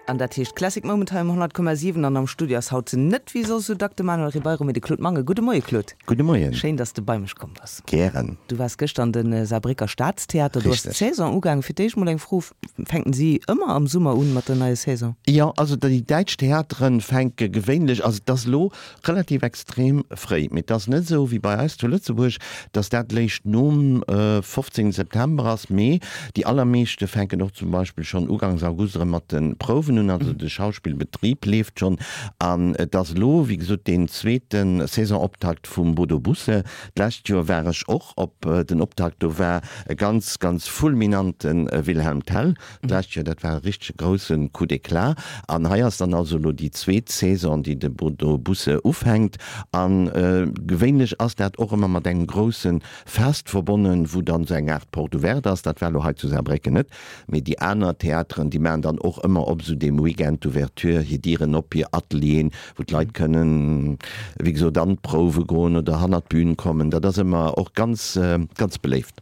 An dat heescht Classic Moment hei um 100,7 an am Studio ass haut net wéi soss esou dack de Manuel Ribeiro, mee de Claude Mangen. Gudde Moie Claude. Gudde Moien. Schéin, dass de bei mech komm bass. Gären. Du waars gëschter an de Saarbrécker Staatstheater, do ass Richteg. d'Saison ugaangen. Fir d'éischt mol eng Fro, Fänken si ëmmer am Summer un mat der neier Saison? Jo, also déi däitsch Theateren fänke gewéinlech, also et ass elo Relativ extrem fréi, mee et ass net esou wéi bei eis zu Lëtzebuerg, dass dat léischt nom 15 September ass, mee déi allermeeschte fänken och zum Beispill schonn ugangs August erëm mat de Prouwen un, also de Schauspillbetrib leeft schonn. An et ass elo, wéi gesot, deen zweete Saisonoptakt vum Bodo Busse. D'lescht Joer war ech och op den Optakt, do war e ganz, ganz fulminante Wilhelm Tell. D'lescht Joer, dat war e richtege grousse Coup d'éclat. An hei ass dann also elo déi zweet Saison, déi de Bodo Busse ufänkt. A gewéinlech ass dat och ëmmer mat engem grousse Fest verbonnen, wou dann esou eng Aart Porte ouverte ass. Dat war elo hei zu Saarbrécken net, mee déi aner Theateren, déi maachen dann och ëmmer op esou deem Weekend d'ouverture hir Dieren op, hir Atelieren, wou d'Leit kënnen, wéi gesot, an d'Prouwe goen oder hannert d'Bün kommen. Dat ass ëmmer och ganz, ganz beléift.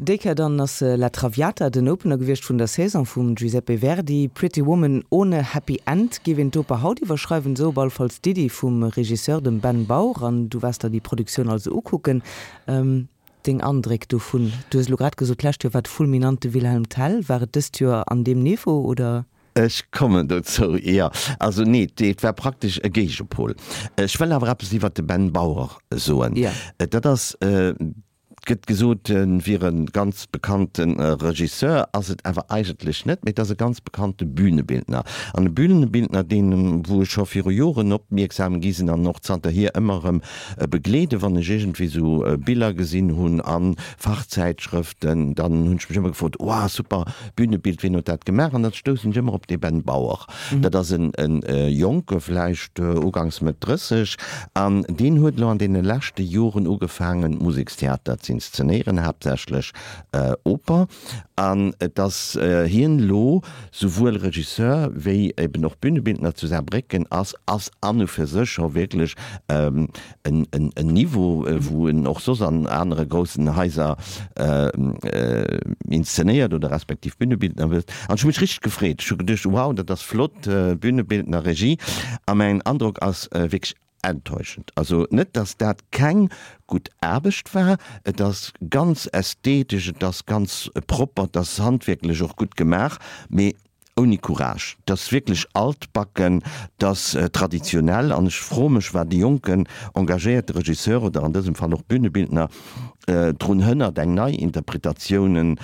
Déi Kéier dann ass La Traviata den Opener gewiescht vun der Saison vum Giuseppe Verdi. Pretty Woman ohne Happy End géif een d'Oper haut iwwerschreiwen, esou op all Falls d'Iddi vum Regisseur, dem Ben Baur. An du waars der déi Produktioun also ukucken. Deng Andréck dovun? Du hues elo grad gesot, d'lescht Joer war et fulminant, de Wilhelm Tell. War et dëst Joer an deem Niveau, oder? Ech kommen dozou, jo. Also nee, et war praktesch e Géigepol. Ech wëll awer eppes iwwert de Ben Baur soen. Dat ass. Et gëtt gesot, e wier e ganz bekannte Regisseur, ass et awer eigentlech net, mee et ass e ganz bekannte Bühnebildner. An e Bühnebildner, deen, wou ech scho viru Joren opmierksam gi sinn an och zanterhier ëmmer erëm begleeden, wann ech iergendwéi esou Biller gesinn hunn a Fachzäitschrëften, dann hunn ech mech ëmmer gefrot, Wow, super Bühnebild, wien huet dat gemaach? An da stoussen ech ëmmer op dee Ben Bauer. Dat ass en Jonke, vläicht ugangs Mëtt 30, an deen huet elo an deene leschte Joren ugefaangen, Musekstheater z'inszenéieren, haaptsächlech Oper. An et ass hien elo souwuel Regisseur wéi eben och Bühnebildner zu Saarbrécken ass, ass an u fir sech scho wierklech en Niveau, wou en och soss an anere groussen Haiser inszenéiert oder respektiv Bühnebildner wëllt. An ech hu mech richteg gefreet. Ech hu geduecht, wow, dat ass flott, Bühnebildner, Regie. A mäin Androck ass wierklech enttäuschend. Also net, datt dat keng gutt Aarbecht war, et ass ganz ästhetesch, et ass ganz propper, et ass handwierklech och gutt gemaach, mee Ouni Courage. 't ass wierklech altbacken, 't ass traditionell an ech froe mech, wat e jonken, engagéierte Regisseur oder an dësem Fall och Bühnebildner drun hënnert, eng nei Interpretatioune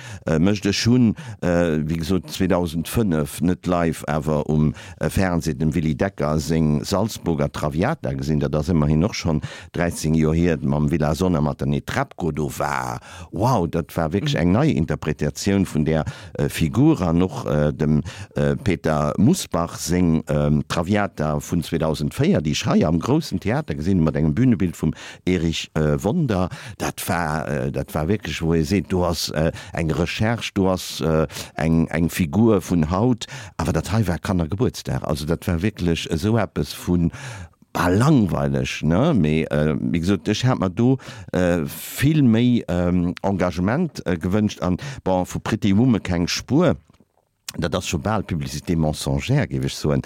mécht. Ech hunn, wéi gesot, 2005, net live, awer um Fernseh, dem Willy Decker seng Salzburger Traviata gesinn, dat ass ëmmerhin och schonn 13 Joer hier, mam Villazón a mat der Netrebko. Do war, wow, dat war wierklech eng nei Interpretatioun vun där Figur an och dem Peter Mussbach seng Traviata vun 2004, déi ech hei am groussen Theater gesinn hunn, mat engem Bünebild vum Erich Wonder, dat war, dat war wierklech, wou ee seet, do ass eng Recherche, do ass eng, eng Figur vun haut. Awer dat hei war Kannergebuertsdag, also dat war wierklech esou eppes vu Bal langweileg, ne? Mee wéi gesot, ech hat mer do vill méi Engagement gewënscht an, bon, vu Pretty Woman keng Spuer. Dat ass scho bal Publicité mensongère, géif ech soen.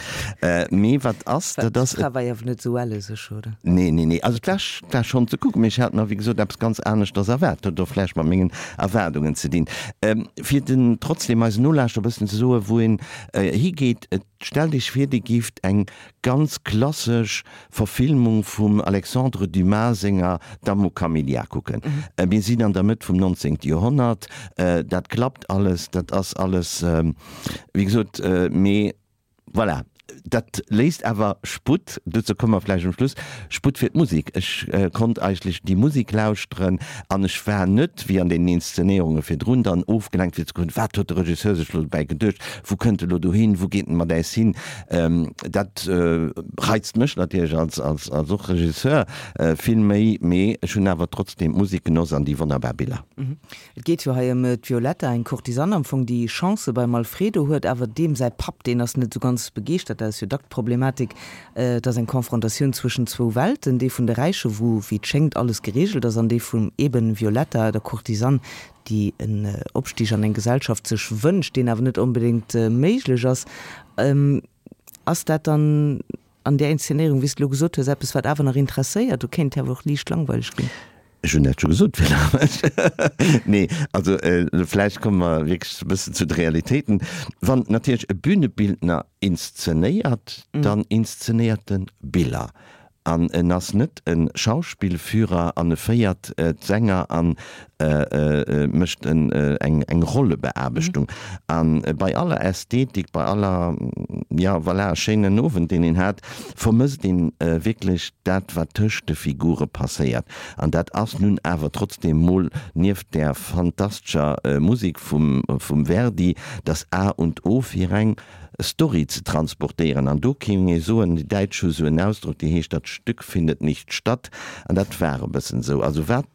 Mee wat ass, dat ass. D'Fra war jo awer net esou elle sech, oder? Nee, nee, nee. Also et war, war schonn ze kucken, mee ech hat mer, wéi gesot, eppes ganz aneschters erwaart. Dat huet och vläicht mat mengen Erwaardungen ze dinn. Fir den trotzdem eisen Nolauschterer e bëssen ze soen, wou een higeet, et Stellt Iech vir, Dir gift eng ganz klassesch Verfilmung vum Alexandre Dumas senger Dame aux Camélias kucken. Mir sinn an der Mëtt vum 19. Joerhonnert, dat klappt alles, dat ass alles, wéi gesot, mee voilà, dat léisst awer Sputt, dozou komme mer vläicht um Schluss, Sputt fir d'Musek. Ech konnt eigentlech déi Musek lauschteren an ech war net, wéi an deenen Inszenéierunge virdrun, dann ofgelenkt fir ze kucken, wat huet de Regisseur sech elo dobäi geduecht, wou kënnt e lo dohin, wou geet en mat äis hin. Dat reizt mech natierlech als, als, als och Regisseur vill méi, mee ech hunn awer trotzdeem d'Musek genoss an déi wonnerbar Biller. Et geet jo hei ëm d'Violetta, eng Courtisane am Fong, déi Chancë beim Alfredo huet, awer deem säi Papp, deen ass net esou ganz begeeschtert. dat ass jo dack d'Problematik, et ass eng Konfrontatioun zwëschen zwou Welten, déi vun de Räiche wou, wéi et schéngt, alles gereegelt ass, an déi vum eben Violetta, der Courtisane, déi en Opstig an eng Gesellschaft sech wënscht, deen awer net onbedéngt méiglech ass. Ass dat dann an där Inszenéierung, wéi s de elo gesot hues, eppes, wat awer nach interesséiert? Do kéint et awer och liicht langweileg ginn. Ech hunn dat scho gesot, fir langweileg. Nee, also vläicht komme mer wierklech e bëssen zu de Realitéiten. Wann natierlech e Bühnebildner inszenéiert, dann inszenéiert e Biller. An en ass net e Schauspielführer an e féiert d'Sänger an mécht eng Rollebeaarbechtung. A bei aller Ästhetik, bei aller, jo voilà, schéinen Owend, deen een hat, vermësst een wierklech dat, wat tëscht de Figure passéiert. An dat ass nun awer trotzdem mol nieft där fantastescher Musek vum Verdi das A und O fir eng Story ze transportéieren. An do kéing ee soen, déi Däitsch hu sou en Ausdrock, dee heescht, Das Stück findet nicht statt. An dat war e bëssen esou. Also wat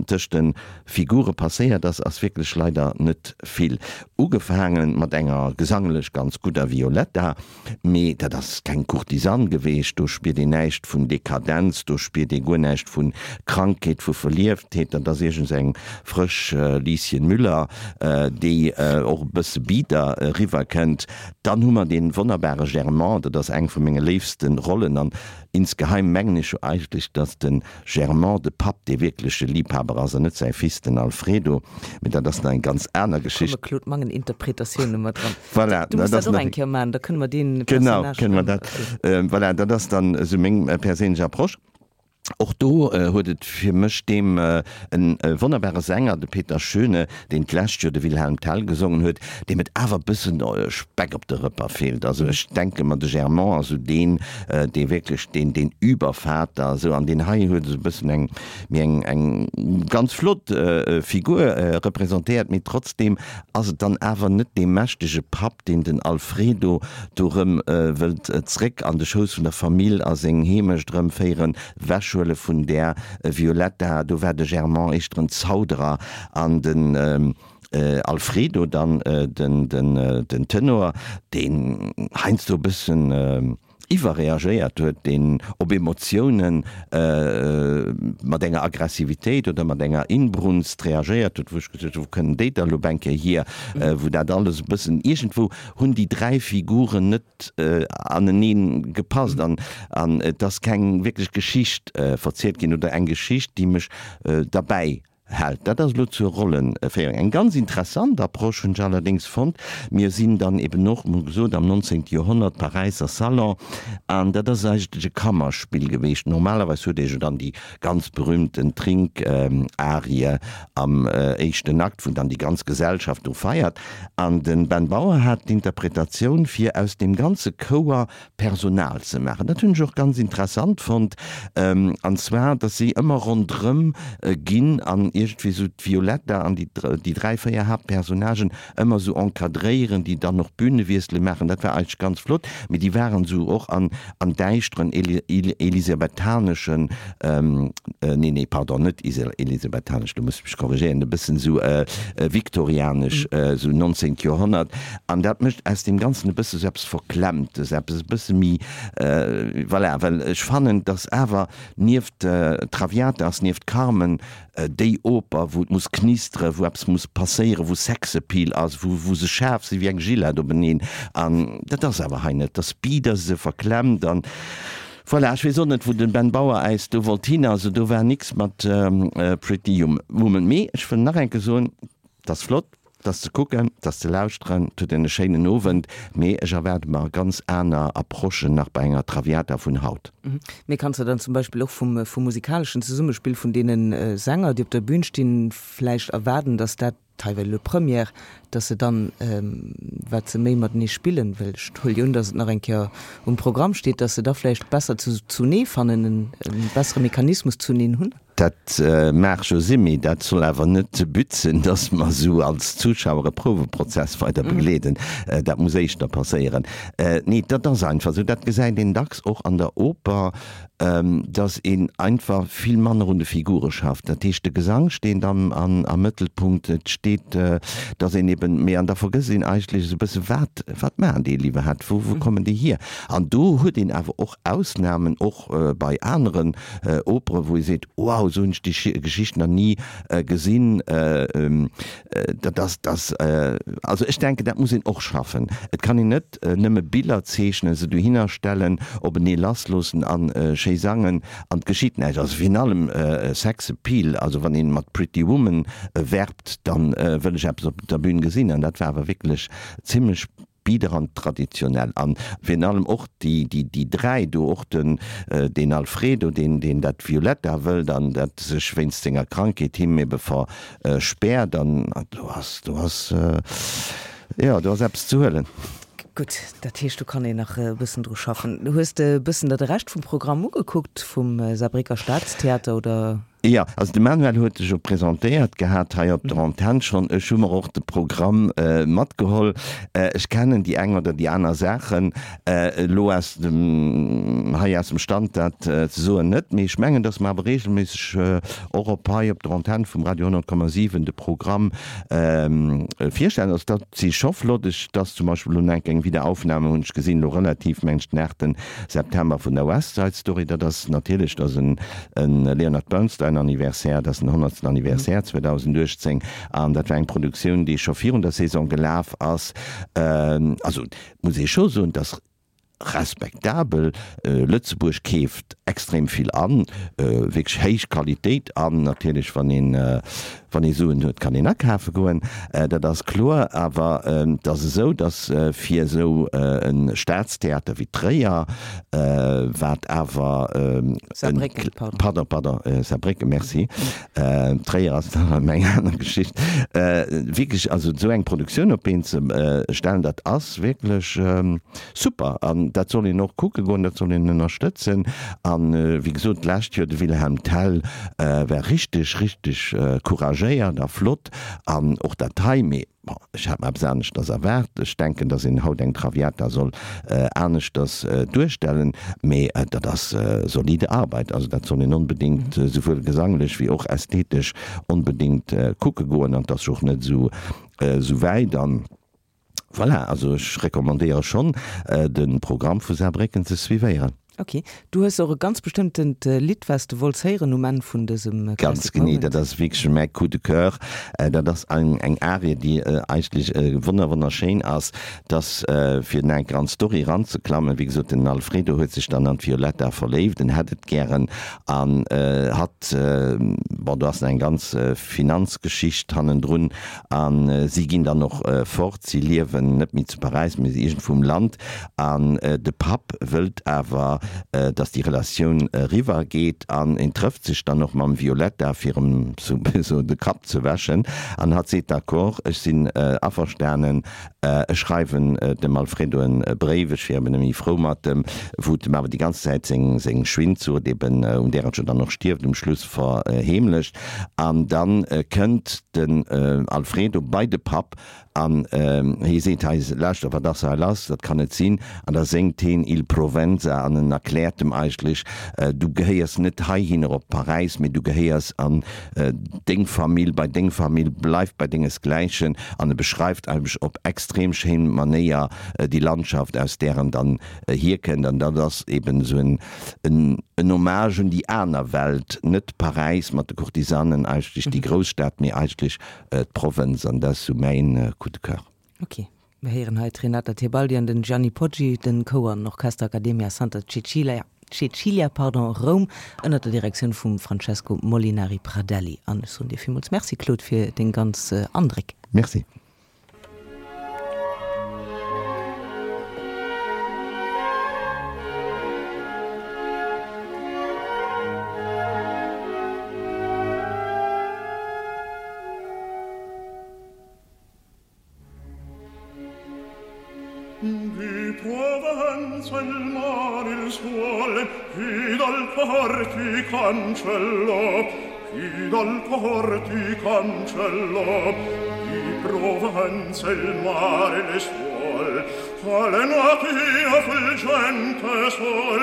tëscht de Figure passéiert ass, ass wierklech leider net vill. Ugefaange mat enger gesanglech ganz gudder Violetta, mee dat ass keng Courtisane geweecht, do spiert een näischt vun Dekadenz, do spiert ee guer näischt vu Krankheet, vu Verlieftheet, dat ass iergends eng frësch Lieschen Müller, déi och e bësse bieder eriwwer kënnt. Dann hu mer dee wonnerbare Germant, dat ass eng vu menge léifste Rollen an insgeheim mengen ech jo eigentlech, datt de Germant de Papp dee wierkleche Liebhaber ass an net säi Fils, den Alfredo, mee dat ass nach eng ganz aner Geschicht. Do komme Claude Mangen Interpretatioune mat dran. Voilà, Du muss dat och eng Kéier maachen, da kënne mer dee Personnage. Genau, kënne mer dat. Voilà, dat ass dann esou meng perséinlech Approche. Och do huet et fir mech deem e wonnerbare Sänger, de Peter Schöne, deen d'lescht Joer de Wilhelm Tell gesongen huet, deem et awer e bëssen Speck op de Rëpper feelt. Also ech denke mer, de Germont ass esou deen, dee wierklech deen, deen Übervater esou, an deen hei huet esou e bëssen eng, méi eng, eng ganz flott Figur representéiert, mee trotzdeem ass et dann awer net dee mächtege Papp, deen den Alfredo do rëm wëllt zréck an de Schouss vun der Famill a seng Heemecht erëmféieren, wechhuele vun där Violetta. Do war de Germant éischter en Zauderer an den Alfredo dann den Tenor, deen heiansdo e bëssen iwwerreagéiert huet, deen op Emotiounen mat enger Aggressivitéit oder mat enger Inbrunst reagéiert huet, wou ech gesot hunn, wou kënnen déi da lo eng Kéier hier, wou dat alles e bëssen, iergendwou hunn déi 3 Figuren net anenee gepasst an et ass keng wierklech Geschicht verzielt ginn oder eng Geschicht, déi mech derbäi Hält. Dat ass elo zur Rollenféierung eng ganz interessant Approche, hunn ech allerdéngs fonnt. Mir sinn dann eben och, mol gesot, am 19. Joerhonnert, Paräisser Salon, an dat ass eigentlech e Kammerspill geweecht. Normalerweis huet ee jo dann déi ganz berühmten Trink-Arie am éischten Akt, wou dann déi ganz Gesellschaft do feiert. An de Ben Bauer hat d'Interpretatioun, fir aus deem ganze Chouer Personal ze maachen. Dat hunn ech och ganz interessant fonnt, an zwar, datt si ëmmer ronderëm ginn an iergendwéi esou d'Violetta an déi 3, 4 Haaptpersonnagen ëmmer esou encadréieren, déi dann och Bünewiessele maachen. Dat war eigentlech ganz flott, mee déi waren esou och an däischteren elisabethaneschen, nee, nee, pardon, net elisabethanesch, do muss ech mech korrigéieren, e bëssen esou viktorianesch, esou 19. Joerhonnert. An dat mécht aus deem Ganzen e bësse sou eppes Verklemmtes, eppes e bësse méi, voilà, well ech fannen, dass awer nieft Traviata ass, nieft Carmen, déi Oper, wou et muss knisteren, wou eppes muss passéieren, wou Sexappeal ass, wou, wou se schaarf si wéi eng Gillette openeen. An dat ass awer hei net. Dat ass bieder, se verklemmt an voilà. Ech weess och net, wou de Ben Bauer äis do wollt hin. Also do war nix mat Pretty Woman. Mee ech wëll nach eng Kéier soen, 't ass flott. 't ass ze kucken, 't ass ze lauschteren, 't huet een e schéinen Owend, mee ech erwaarde mer ganz aner Approchen nach bei enger Traviata vun haut. Mee kanns de dann zum Beispill och vum vum musikaleschen Zesummespill vun deene Sänger, déi op der Bühn stinn, vläicht erwaarden, datt dat, hei well elo Première, datt se dann, wat se méi matenee spillen, well ech huele jo un, datt et nach eng Kéier um Programm steet, datt se da vläicht besser zunee fannen, e bessere Mechanismus zuneen hunn? Dat maach jo sinn, mee dat soll awer net de But sinn, dass mer esou als Zuschauer e Prouweprozess weider begleeden. Dat muss éischter passéieren. Nee, dat ass einfach esou. Dat gesäit een dacks och an der Oper, dass een einfach vill manner un de Figure schafft. Dat heescht, de Gesang steet am Mëttelpunkt, et. steet, dass een eben, mee an da vergësst een eigentlech esou e bësse wat, wat maachen déi iwwerhaapt, wou, wou kommen déi hier? An do huet een awer och Ausnamen, och bei aneren Opere wou ee seet, wow, esou hunn ech déi Geschicht nach ni gesinn. Dat ass, dat, also ech denken, dat muss een och schaffen. Et kann een net nëmme Biller zeechnen, se dohinner stellen, openee lassloossen a schéi sangen an et geschitt näischt. Also virun allem Sex Appeal, also wann ee mat Pretty Woman werbt, da wëll ech eppes op der Bühn gesinn an dat war awer wierklech zimlech bieder an traditionell. An virun allem och déi, déi, déi 3 do, och den, deen Alfredo, deen, deen dat Violetta wëllt an dat sech wéinst senger Krankheet him ebe verspäert an do ass, do ass, jo, do ass eppes ze huelen. Gutt, dat heescht, do kann een nach e bëssen dru schaffen. Hues de e bëssen der de Rescht vum Programm ugekuckt vum Saarbrécker Staatstheater oder? Jo, also de Manuel huet sech jo presentéiert gehat hei op der Antenn schonn. Ech hu mer och de Programm matgeholl. Ech kennen déi eng oder déi aner Saachen elo aus dem, hei aus dem Stand dat ze soen net, mee ech mengen, datt mer awer reegelméisseg och op hei op der Antenn vum Radio 100,7 de Programm virstellen. Also dat si scho flott. Ech, et ass zum Beispill elo nach eng Wiederaufnahme hunn ech gesinn, elo relativ, mengen ech den 8. September vun der West Side Story. Dat ass natierlech, dat ass en Leonard Bernstein Anniversaire, dat ass den honnertsten Anniversaire 2018 an dat war eng Produktioun, déi scho virun der Saison gelaf ass. Also muss ee scho soen, dass respektabel, Lëtzebuerg keeft extrem vill an, wierklech héich Qualitéit an natierlech wann een Wann ee Suen huet, kann een akafe goen, dat ass kloer. Awer et ass esou, datt fir esou e Staatstheater wéi Tréier, wat awer en, Saarbrécken, pardon. Pardon, pardon, Saarbrécken, merci. Tréier ass nach erëm eng aner Geschicht. Wierklech, also esou eng Produktioun op d'Been ze stellen, dat ass wierklech super. An dat soll een och kucke goen, dat soll een ënnerstëtzen. An, wéi gesot, d'lescht Joer de Wilhelm Tell, War richteg richteg couragéiert a flott an och dat hei, mee bon, ech hat mer eppes aneschters erwaart. Ech denken, dass een haut eng Traviata soll aneschters duerstellen, mee dat ass solide Arbeit, also dat soll een onbedéngt souwuel gesanglech wéi och ästhetesch onbedéngt kucke goen an 't ass jo och net esou wäit an. Voilà, also ech recommandéiere schonn de Programm vu Saarbrécken ze suivéieren. Ok, du hues och e ganz bestëmmtent Lidd wat s de wollts héieren um Enn vun dësem Classic Moment. Ganz genee, dat ass wierklech mäi Coup de coeur. Dat ass eng eng Arie, déi eigentlech wonner wonnerschéin ass. Dass fir nach eng Kéier an d'Story eranzeklammen, wéi gesot, den Alfredo huet sech dann an d'Violetta verléift, en hätt et gären an hatt, bon do ass nach eng ganz Finanzgeschicht hannendrun, A si ginn dann och fort, si liewen net méi zu Paräis, mee iergendwou um Land. An de Papp wëllt awer, datt déi Relatioun eriwwer geet. An en trëfft sech dann och mam Violetta, fir em sou de Kapp ze wäschen. An hatt seet, D'accord, ech sinn averstanen, ech schreiwen dem Alfredo e Bréif, ech wier eben net méi frou mat em, wou et em awer déi ganz Zäit seng Schwindsucht eben, un där et jo dann och stierft um Schluss, verheemlecht. An dann kënnt den Alfredo bei de Papp an hie seet, Hei, lauschter, wat ass hei lass? Dat kann net sinn. An da séngt heen Il Provenza an en erkläert em eigentlech, Du gehéiers net heihinner op Paräis, mee du gehéiers an deng Famill, bei deng Famill, bleif bei dengesgläichen. An e beschreift eigentlech op extrem schéin Manéier déi Landschaft, aus där en dann hierkënnt. An dat ass eben esou en En Hommage un déi aner Welt, net Paräis mat de Courtisanen, eigentlech déi Grousstad, mee eigentlech d'Provënz, an dat ass sou mäin Coup de coeur. Ok, mir héieren hei d'Renata Tebaldi an den Gianni Poggi, den Chouer an Orchester Accademia Santa Cecilia, Cecilia, pardon, Roum, ënnert der Direktioun vum Francesco Molinari Pradelli. An ech soen dir villmools Merci, Claude, fir deng ganz Andréck. Merci. Di Provenza il mare il suol Chi dal cor ti cancellò Chi dal cor ti cancellò Di Provenza il mare le suol Quale natia fulgente sol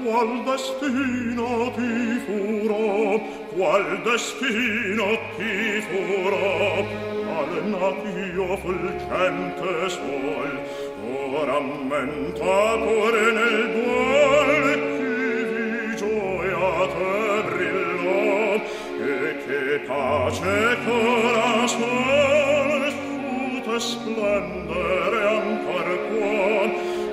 Qual destino ti furò Qual destino ti furò? qual natio fulgente sol or ammenta pure nel duol chi di gioia te brillò e che pace cora sol su te splendere ancor può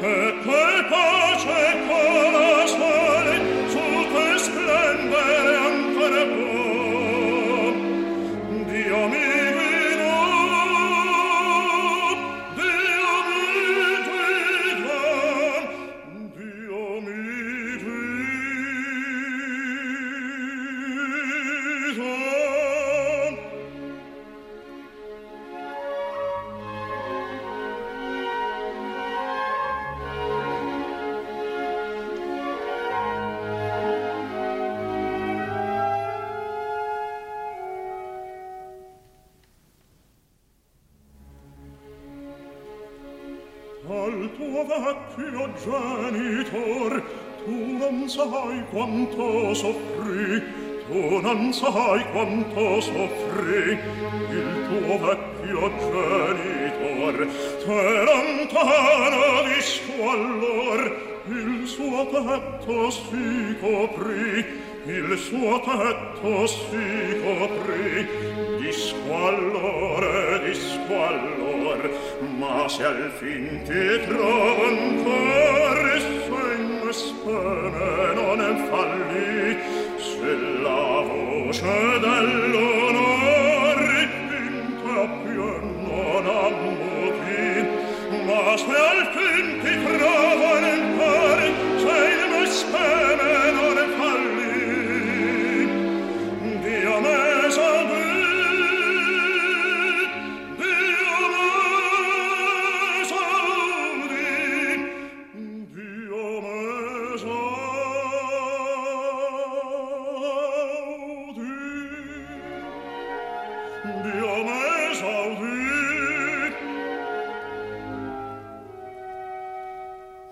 e che pace cora sol su te splendere ancor può Dio mi guidò, Dio mi guidò, Dio mi guidò. Al tuo vecchio genitor tu non sai quanto soffrì tu non sai quanto soffrì il tuo vecchio genitor te lontano di squallor il suo tetto si coprì il suo tetto si coprì di squallore di squallor ma se al fin ti trovo ancor se in me speme non fallì se la voce dell'onor in te più non ammuti ma se al fin ti trovo ancor se in me speme non fallì Dio me esaudì Dio me esaudì Dio me esaudì Dio me esaudì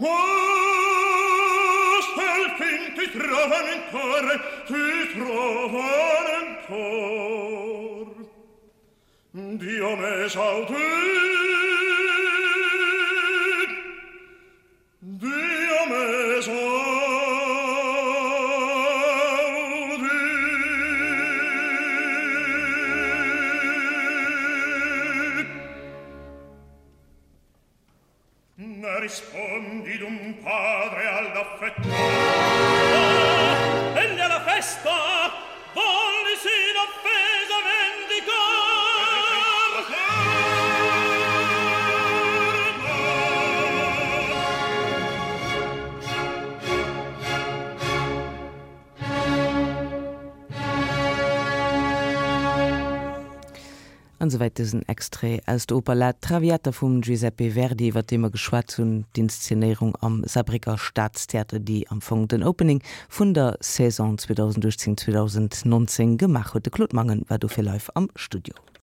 Oh, se al fin ti trovan ancora, ti trovan ancor. Dio me esaudì, Dio me esaudì. Ne rispondi d'un padre all'affetto. Ah, egli alla festa vollesi l'offesa vendicar. An esouwäit dësen Extrait aus der Oper La Traviata vum Giuseppe Verdi, iwwer dee mer geschwat hunn, d'Inszenéierung am Saarbrécker Staatstheater, déi am Fong den Opening vun der Saison 2018, 2019 gemaach huet. De Claude Mangen war dofir live am Studio.